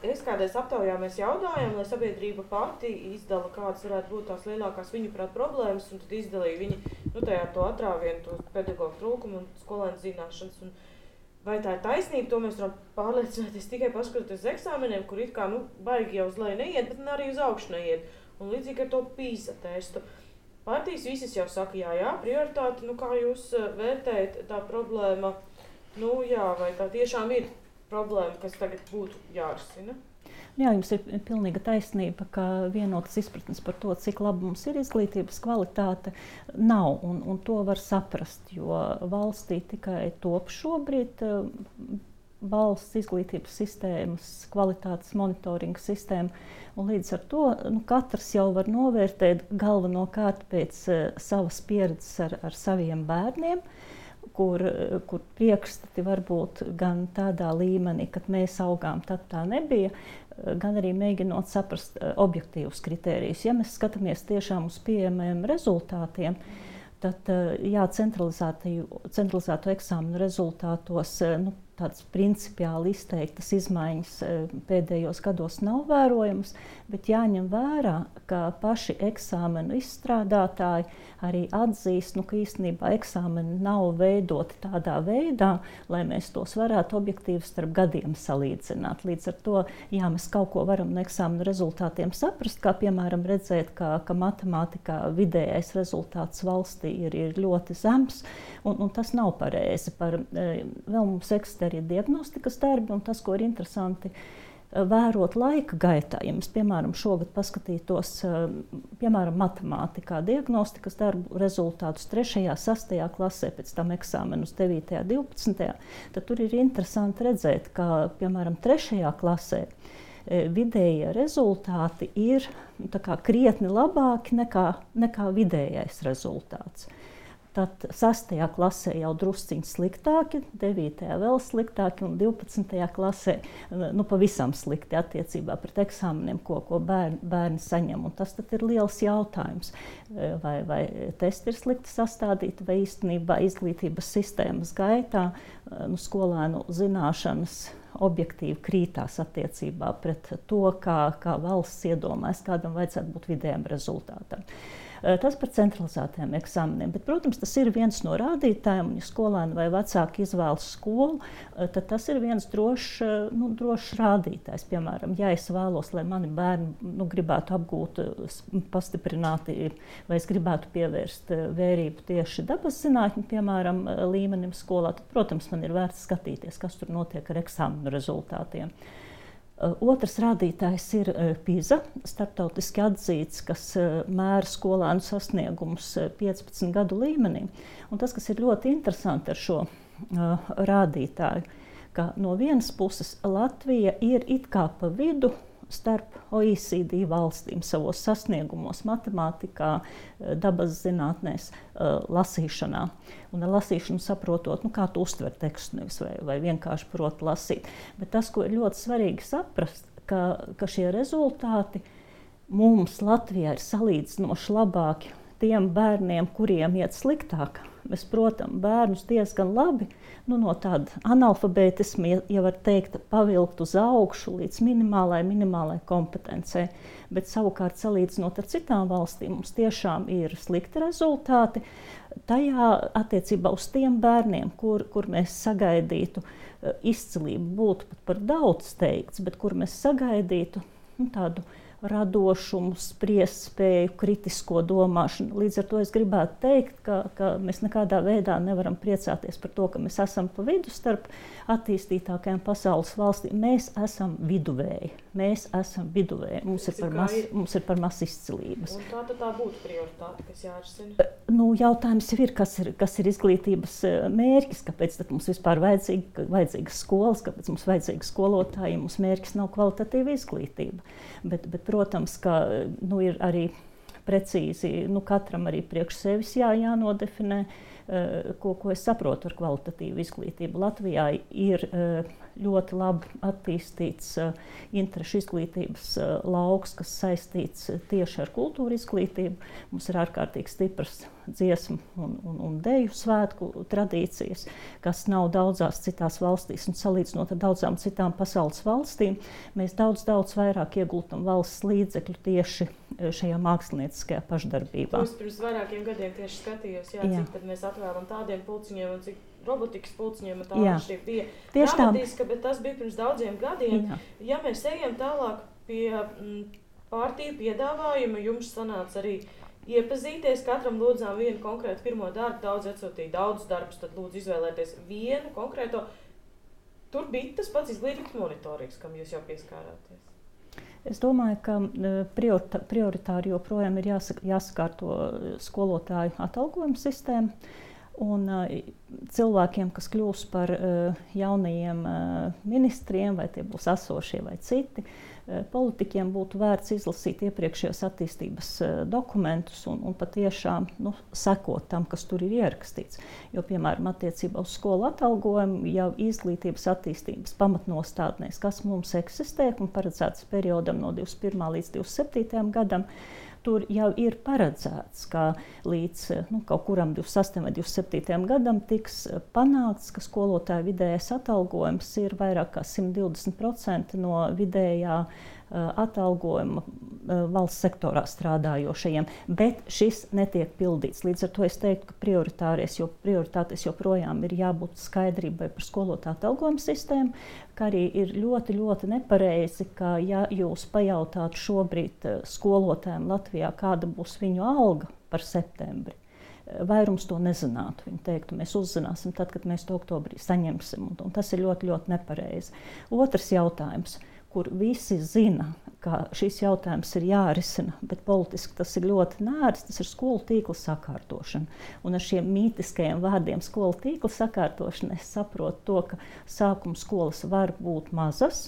Es kādreiz aptaujā mēs jautājām, lai sabiedrība pati izdala, kādas varētu būt tās lielākās viņu prāt problēmas, un tad izdalīja viņi, tajā to atrāvienu, to pedagoģu trūkumu un skolēnu zināšanas. Un vai tā ir taisnība, to mēs varam pārliecināties tikai paskatoties uz eksāmeniem, kur it kā, baigi jau uz leju neiet, bet arī uz augšu neiet. Un līdzīgi ar to PISA testu. Partijas visas jau saka, jā, prioritāti, kā jūs vērtējat tā problēma, vai tā tiešām ir problēma, kas tagad būtu jārisina? Jā, jums ir pilnīga taisnība, ka vienotas izpratnes par to, cik laba mums ir izglītības kvalitāte, nav, un to var saprast, jo valstī tikai top šobrīd valsts izglītības sistēmas, kvalitātes monitoringa sistēma, un līdz ar to katrs jau var novērtēt galvenokārt pēc savas pieredzes ar saviem bērniem, kur priekšstati var būt gan tādā līmenī, kad mēs augām, tad tā nebija, gan arī mēģinot saprast objektīvus kritērijus. Ja mēs skatāmies tiešām uz pieejamiem rezultātiem, tad centralizēto eksāmenu rezultātos tādas principiāli izteiktas izmaiņas pēdējos gados nav vērojamas, bet jāņem vērā, ka paši eksāmenu izstrādātāji arī atzīst, ka īstenībā eksāmeni nav veidoti tādā veidā, lai mēs tos varētu objektīvi starp gadiem salīdzināt. Līdz ar to, mēs kaut ko varam no eksāmenu rezultātiem saprast, kā piemēram redzēt, ka matemātikā vidējais rezultāts valstī ir ļoti zems, un tas nav pareizi. Vēl mums eksistē arī diagnostikas darbi, un tas, ko ir interesanti vērot laika gaitā. Ja mēs, piemēram, šogad paskatītos, matemātikā diagnostikas darbu rezultātus 3., 6. klasē, pēc tam eksāmenus 9., 12., tad tur ir interesanti redzēt, ka, piemēram, 3. klasē vidējie rezultāti ir krietni labāki nekā vidējais rezultāts. Tad 6. klasē jau drusciņi sliktāki, 9. vēl sliktāki un 12. klasē pavisam slikti attiecībā pret eksāmeniem, ko bērni saņem. Un tas tad ir liels jautājums, vai testi ir slikti sastādīti, vai īstenībā izglītības sistēmas gaitā skolēnu zināšanas objektīvi krītās attiecībā pret to, kā valsts iedomājas, kādam vajadzētu būt vidējam rezultātam. Tas par centralizētiem eksāmeniem, bet, protams, tas ir viens no rādītājiem, un ja skolēni vai vecāki izvēlas skolu, tad tas ir viens drošs rādītājs. Piemēram, ja es vēlos, lai mani bērni gribētu apgūt pastiprināti, vai es gribētu pievērst vērību tieši dabas zinātņu, piemēram, līmenim skolā, tad, protams, man ir vērts skatīties, kas tur notiek ar eksāmenu rezultātiem. Otrs rādītājs ir PISA, starptautiski atzīts, kas mēra skolēnu sasniegumus 15 gadu līmenī. Un tas, kas ir ļoti interesanti ar šo rādītāju, ka no vienas puses Latvija ir it kā pa vidu starp OECD valstīm savos sasniegumos matemātikā, dabas zinātnēs, lasīšanā. Un ar lasīšanu saprotot, kā tu uztver tekstu, nevis vai vienkārši proti lasīt. Bet tas, ko ir ļoti svarīgi saprast, ka šie rezultāti mums Latvijā ir salīdzinoši labāki tiem bērniem, kuriem iet sliktāk. Mēs, protams, bērnus diezgan labi no tāda analfabētisma, ja var teikt, pavilkt uz augšu līdz minimālai kompetencei. Bet savukārt, salīdzinot ar citām valstīm, mums tiešām ir slikti rezultāti. Tajā attiecībā uz tiem bērniem, kur mēs sagaidītu izcilību, būtu pat par daudz teikts, bet kur mēs sagaidītu tādu radošumu, spriestspēju, kritisko domāšanu. Līdz ar to es gribētu teikt, ka mēs nekādā veidā nevaram priecāties par to, ka mēs esam pa vidu starp attīstītākajām pasaules valstīm. Mēs esam viduvēji. Mums ir par maz izcilības. Un tā būtu prioritāte, kas jārisina? Jautājums jau ir, kas ir izglītības mērķis, kāpēc tad mums vispār vajadzīgas skolas, kāpēc mums vajadzīga skolotāji, ja mums mērķis nav kvalitatīva izglītība. Bet protams, ka ir arī precīzi, katram arī priekš sevis jānodefinē, ko es saprotu ar kvalitatīvu izglītību. Latvijā ir ļoti labi attīstīts interešu izglītības lauks, kas saistīts tieši ar kultūra izglītību. Mums ir ārkārtīgi stipras dziesmu un deju svētku tradīcijas, kas nav daudzās citās valstīs. Un salīdzinot ar daudzām citām pasaules valstīm, mēs daudz vairāk ieguldam valsts līdzekļu tieši šajā mākslinieckajā pašdarbībā. Es pirms vairākiem gadiem tieši skatījos, cik tad mēs atvēlam tādiem pulciņiem un cik robotikas pulciņiem un tā atšķirība bija dramatiska, bet tas bija pirms daudziem gadiem. Ja mēs ejam tālāk pie partiju piedāvājuma, jums sanāca arī iepazīties, katram lūdzām vienu konkrētu pirmo darbu, daudz atsūtīja daudz darbus, tad lūdzu izvēlēties vienu konkrēto. Tur bija tas pats izglītības monitorings, kam jūs jau pieskārāties. Es domāju, ka prioritāri joprojām ir jāsakārto skolotāju atalgojuma sistēma. Un cilvēkiem, kas kļūs par jaunajiem ministriem, vai tie būs esošie vai citi, politiķiem būtu vērts izlasīt iepriekšējos attīstības dokumentus un patiešām sekot tam, kas tur ir ierakstīts. Jo, piemēram, attiecībā uz skolu atalgojumu jau izglītības attīstības pamatnostādnēs, kas mums eksistē un paredzēts periodam no 21. līdz 27. gadam, tur jau ir paredzēts, ka līdz kaut kuram 28. vai 27. gadam tiks panākts, ka skolotāju vidējais atalgojums ir vairāk kā 120% no vidējā atalgojuma valsts sektorā strādājošajiem, bet šis netiek pildīts. Līdz ar to es teiktu, ka prioritātes joprojām ir jābūt skaidrībai par skolotāju atalgojumu sistēmu, kā arī ir ļoti, ļoti nepareizi, ka ja jūs pajautātu šobrīd skolotājiem Latvijā, kāda būs viņu alga par septembri, vairums to nezinātu. Viņi teiktu, mēs uzzināsim tad, kad mēs to oktobrī saņemsim, un tas ir ļoti, ļoti nepareizi. Otrs jautājums, kur visi zina, ka šis jautājums ir jārisina, bet politiski tas ir ļoti nērts, tas ir skolu tīkla sakārtošana. Un ar šiem mītiskajiem vārdiem skolu tīkla sakārtošana es saprotu to, ka sākuma skolas var būt mazas,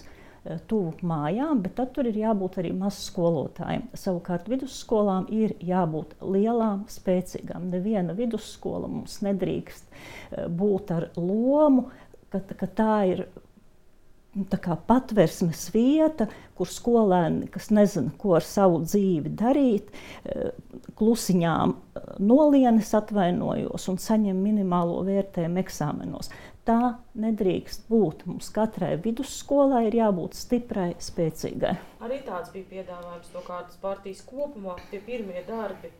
tuvu mājām, bet tad tur ir jābūt arī mazu skolotājiem. Savukārt vidusskolām ir jābūt lielām, spēcīgām. Neviena vidusskola mums nedrīkst būt ar lomu, ka tā ir tā kā patversmes vieta, kur skolēni, kas nezina, ko ar savu dzīvi darīt, klusiņām nolienes atvainojos un saņem minimālo vērtējumu eksāmenos. Tā nedrīkst būt. Mums katrai vidusskolai ir jābūt stiprai, spēcīgai. Arī tāds bija piedāvājums no kādas partijas kopumā, tie pirmie darbi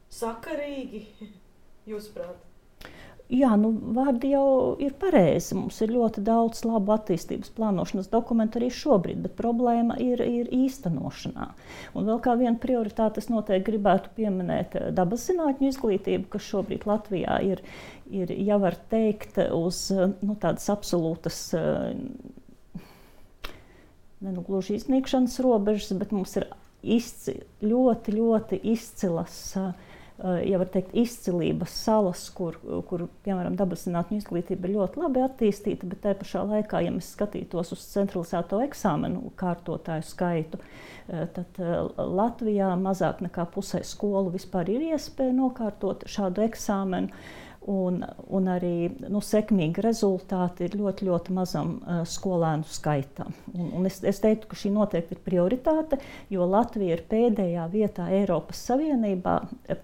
sakarīgi, jūsuprāt? Jā, vārdi jau ir pareizi. Mums ir ļoti daudz labu attīstības plānošanas dokumentu arī šobrīd, bet problēma ir īstenošanā. Un vēl kā viena prioritāte es noteikti gribētu pieminēt dabas zinātņu izglītību, kas šobrīd Latvijā ir jau var teikt uz tādas absolūtas gluži iznīkšanas robežas, bet mums ir ļoti, ļoti izcilas ja var teikt, izcilības salas, kur piemēram, dabas zinātņu izglītība ir ļoti labi attīstīta, bet tai pašā laikā, ja mēs skatītos uz centralizēto eksāmenu kārtotāju skaitu, tad Latvijā mazāk nekā pusē skolu vispār ir iespēja nokārtot šādu eksāmenu. Un arī sekmīgi rezultāti ir ļoti, ļoti mazam skolēnu skaitam. Un es teiktu, ka šī noteikti ir prioritāte, jo Latvija ir pēdējā vietā Eiropas Savienībā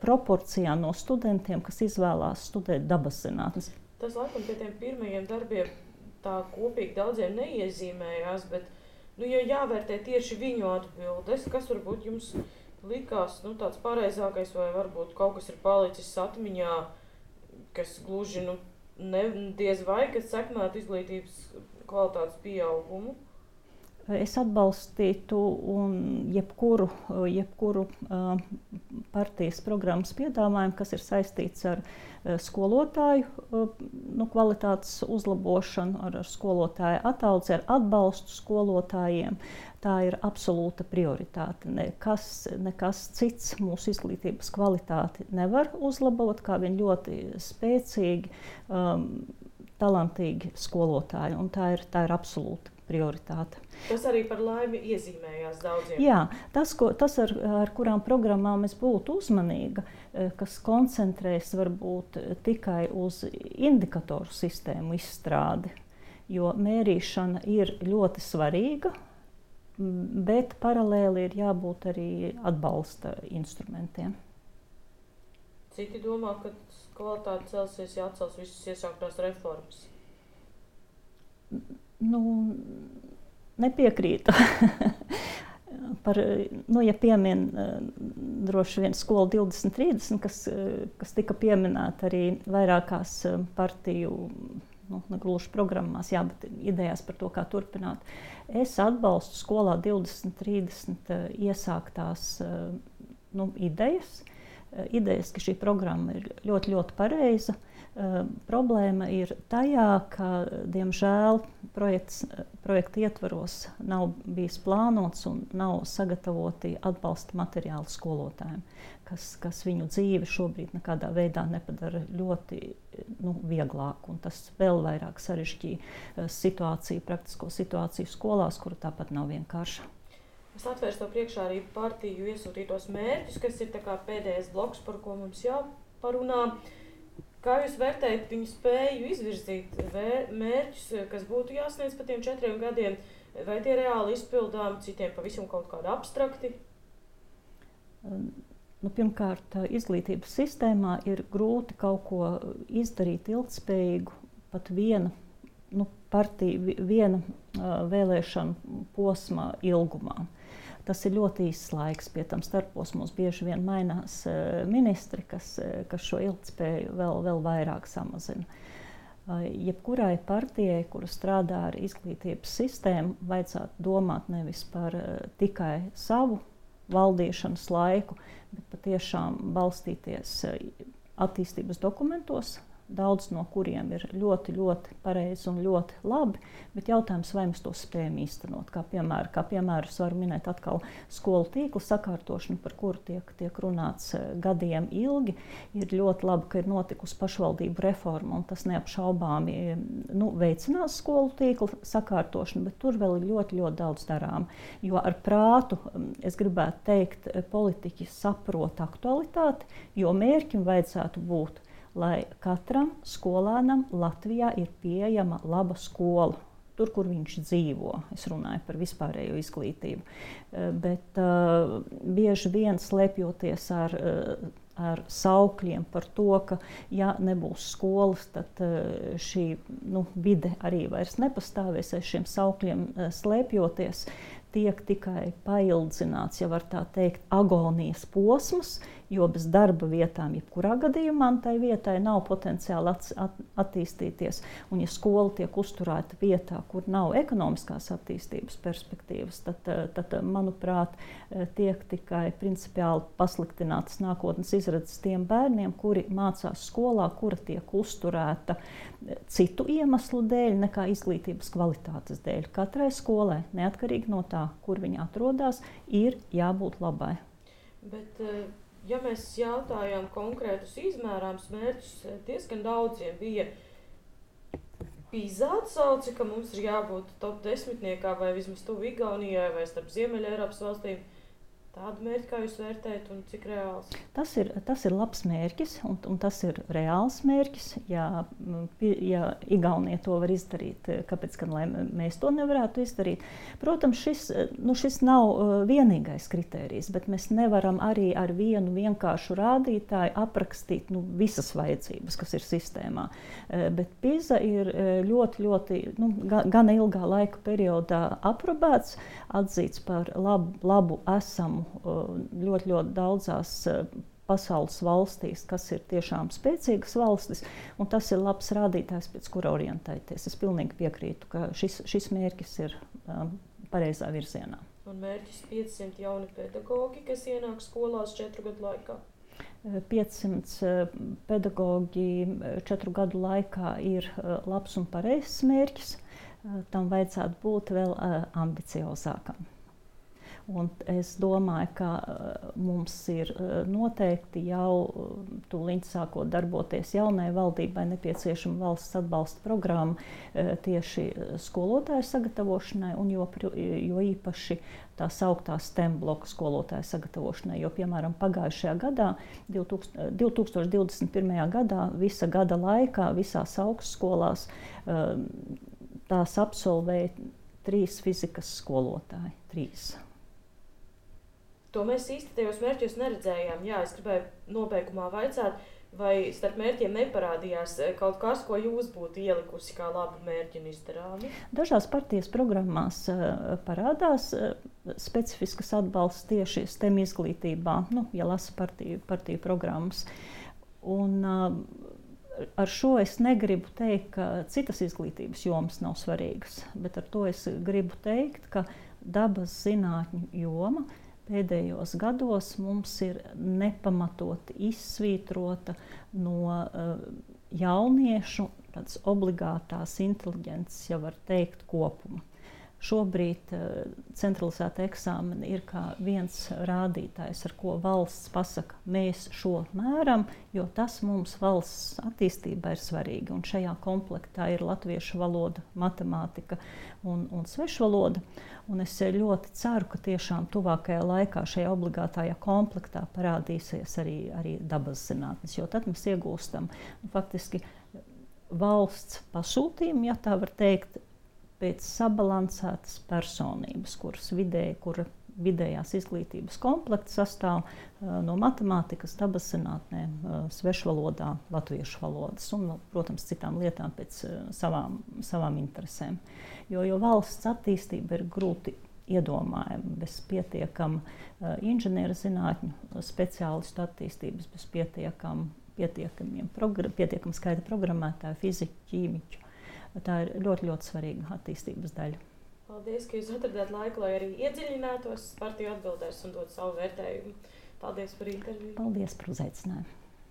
proporcijā no studentiem, kas izvēlās studēt dabas zinātnes. Tas laikam pie tiem pirmajiem darbiem tā kopīgi daudziem neiezīmējās, bet ja jāvērtē tieši viņu atbildes, kas varbūt jums likās tāds pareizākais vai varbūt kaut kas ir palicis atmiņā, kas gluži diez vai, kas sekmētu izglītības kvalitātes pieaugumu? Es atbalstītu jebkuru partijas programmas piedāvājumu, kas ir saistīts ar skolotāju kvalitātes uzlabošanu, ar skolotāju ataudzi, ar atbalstu skolotājiem. Tā ir absolūta prioritāte. Nekas cits mūsu izglītības kvalitāti nevar uzlabot, kā vien ļoti spēcīgi, talantīgi skolotāji. Un tā ir absolūta prioritāte. Tas arī par laimi iezīmējās daudziem. Jā, tas ar kurām programmām es būtu uzmanīga, kas koncentrēs varbūt tikai uz indikatoru sistēmu izstrādi. jo mērīšana ir ļoti svarīga, bet paralēli ir jābūt arī atbalsta instrumentiem. Citi domā, ka kvalitāte celsies, ja atcels visas iesāktās reformas. Nepiekrītu. Ja piemin droši vien Skola 2030, kas tika pieminēta arī vairākās partiju, negluži programmās, bet idejās par to, kā turpināt. Es atbalstu Skolā 2030 iesāktās idejas, ka šī programma ir ļoti, ļoti pareiza. Problēma ir tajā, ka, diemžēl, projekta ietvaros nav bijis plānots un nav sagatavoti atbalsta materiāli skolotājiem, kas viņu dzīvi šobrīd nekādā veidā nepadara ļoti vieglāku. Un tas vēl vairāk sarežģīja praktisko situāciju skolās, kura tāpat nav vienkārša. Es atvērstu to priekšā arī partiju iesūtītos mērķus, kas ir tā kā pēdējais bloks, par ko mums jāparunā. Kā jūs vērtējat viņu spēju izvirzīt mērķus, kas būtu jāsniedz pa tiem 4 gadiem, vai tie reāli izpildām, citiem pavisam kaut kādi abstrakti? Pirmkārt, izglītības sistēmā ir grūti kaut ko izdarīt ilgtspējīgu, pat viena vēlēšanu posma ilgumā. Tas ir ļoti īsts laiks, pie tam starposmos bieži vien mainās ministri, kas šo ilgtspēju vēl vairāk samazina. Jebkurai partijai, kura strādā ar izglītības sistēmu, vajadzētu domāt nevis par tikai savu valdīšanas laiku, bet patiešām balstīties attīstības dokumentos, daudz no kuriem ir ļoti, ļoti pareizi un ļoti labi, bet jautājums, vai mēs to spējam īstenot. Kā piemēru es varu minēt atkal skolu tīkla sakārtošanu, par kuru tiek runāts gadiem ilgi. Ir ļoti labi, ka ir notikusi pašvaldību reforma, un tas neapšaubāmi veicinās skolu tīkla sakārtošanu, bet tur vēl ir ļoti, ļoti daudz darām. Jo ar prātu, es gribētu teikt, politiķi saprot aktualitāti, jo mērķim vajadzētu būt, lai katram skolēnam Latvijā ir pieejama laba skola, tur, kur viņš dzīvo. Es runāju par vispārējo izglītību. Bet bieži vien slēpjoties ar saukļiem par to, ka, ja nebūs skolas, tad šī vide arī vairs nepastāvēs, aiz šiem saukļiem slēpjoties, tiek tikai paildzināts, ja var tā teikt, agonijas posms, jo bez darba vietām jebkurā gadījumā tai vietai nav potenciāli attīstīties. Un ja skola tiek uzturēta vietā, kur nav ekonomiskās attīstības perspektīvas, tad manuprāt, tiek tikai principiāli pasliktinātas nākotnes izredzes tiem bērniem, kuri mācās skolā, kura tiek uzturēta citu iemeslu dēļ nekā izglītības kvalitātes dēļ. Katrai skolai, neatkarīgi no tā, kur viņa atrodas, ir jābūt labai. Bet, ja mēs jautājām konkrētus izmērāmus mērķus, diezgan daudziem bija PISA atsauce, ka mums ir jābūt top 10 vai vismaz tuvu Igaunijai vai starp Ziemeļa Eiropas valstīm. Tādu mērķi, kā jūs vērtējat un cik reāls? Tas ir labs mērķis un tas ir reāls mērķis. Ja Igaunija to var izdarīt, kāpēc gan lai mēs to nevarētu izdarīt? Protams, šis nav vienīgais kritērijs, bet mēs nevaram arī ar vienu vienkāršu rādītāju aprakstīt visas vajadzības, kas ir sistēmā. Bet PISA ir ļoti, ļoti, gana ilgā laika periodā aprobēts, atzīts par labu esamu ļoti, ļoti daudzās pasaules valstīs, kas ir tiešām spēcīgas valstis, un tas ir labs rādītājs, pēc kura orientēties. Es pilnīgi piekrītu, ka šis mērķis ir pareizā virzienā. Un mērķis 500 jauni pedagogi, kas ienāk skolās 4 gadu laikā? 500 pedagogi 4 gadu laikā ir labs un pareizs mērķis. Tam vajadzētu būt vēl ambiciozākam. Un es domāju, ka mums ir noteikti jau tūlīt sākot darboties jaunai valdībai nepieciešama valsts atbalsta programma tieši skolotāju sagatavošanai un jo īpaši tā sauktā STEM bloka skolotāju sagatavošanai. Jo, piemēram, pagājušajā gadā, 2021. gadā, visa gada laikā, visās augstskolās tās absolvēja 3 fizikas skolotāji. 3. To mēs īsti tajos mērķos neredzējām. Jā, es gribēju nobeigumā vaicāt, vai starp mērķiem neparādījās kaut kas, ko jūs būtu ielikusi kā labu mērķi un izdarāmi? Dažās partijas programmās parādās specifiskas atbalsts tieši STEM izglītībā, ja lasa partiju programmas. Un ar šo es negribu teikt, ka citas izglītības jomas nav svarīgas, bet ar to es gribu teikt, ka dabas zinātņu joma pēdējos gados mums ir nepamatoti izsvītrota no jauniešu tādas obligātās inteliģences, ja var teikt, kopuma. Šobrīd centralizēta eksāmena ir kā viens rādītājs, ar ko valsts pasaka, mēs šo mēram, jo tas mums valsts attīstībā ir svarīgi. Un šajā komplektā ir latviešu valoda, matemātika un svešvaloda. Un es ļoti ceru, ka tiešām tuvākajā laikā šajā obligātajā komplektā parādīsies arī dabas zinātnes, jo tad mēs iegūstam faktiski valsts pasūtījumu, ja tā var teikt, pēc sabalansētas personības, kura vidējās izglītības komplekts sastāv no matemātikas, dabas zinātnēm, svešvalodā, latviešu valodas un, protams, citām lietām pēc savām interesēm. Jo valsts attīstība ir grūti iedomājama bez pietiekama inženieru zinātņu speciālistu attīstības, bez pietiekama skaita programmētāju, fiziku, ķīmiķu. Tā ir ļoti, ļoti svarīga attīstības daļa. Paldies, ka jūs atradāt laiku, lai arī iedziļinātos partiju atbildēs un dot savu vērtējumu. Paldies par interviju. Paldies par uzaicinājumu.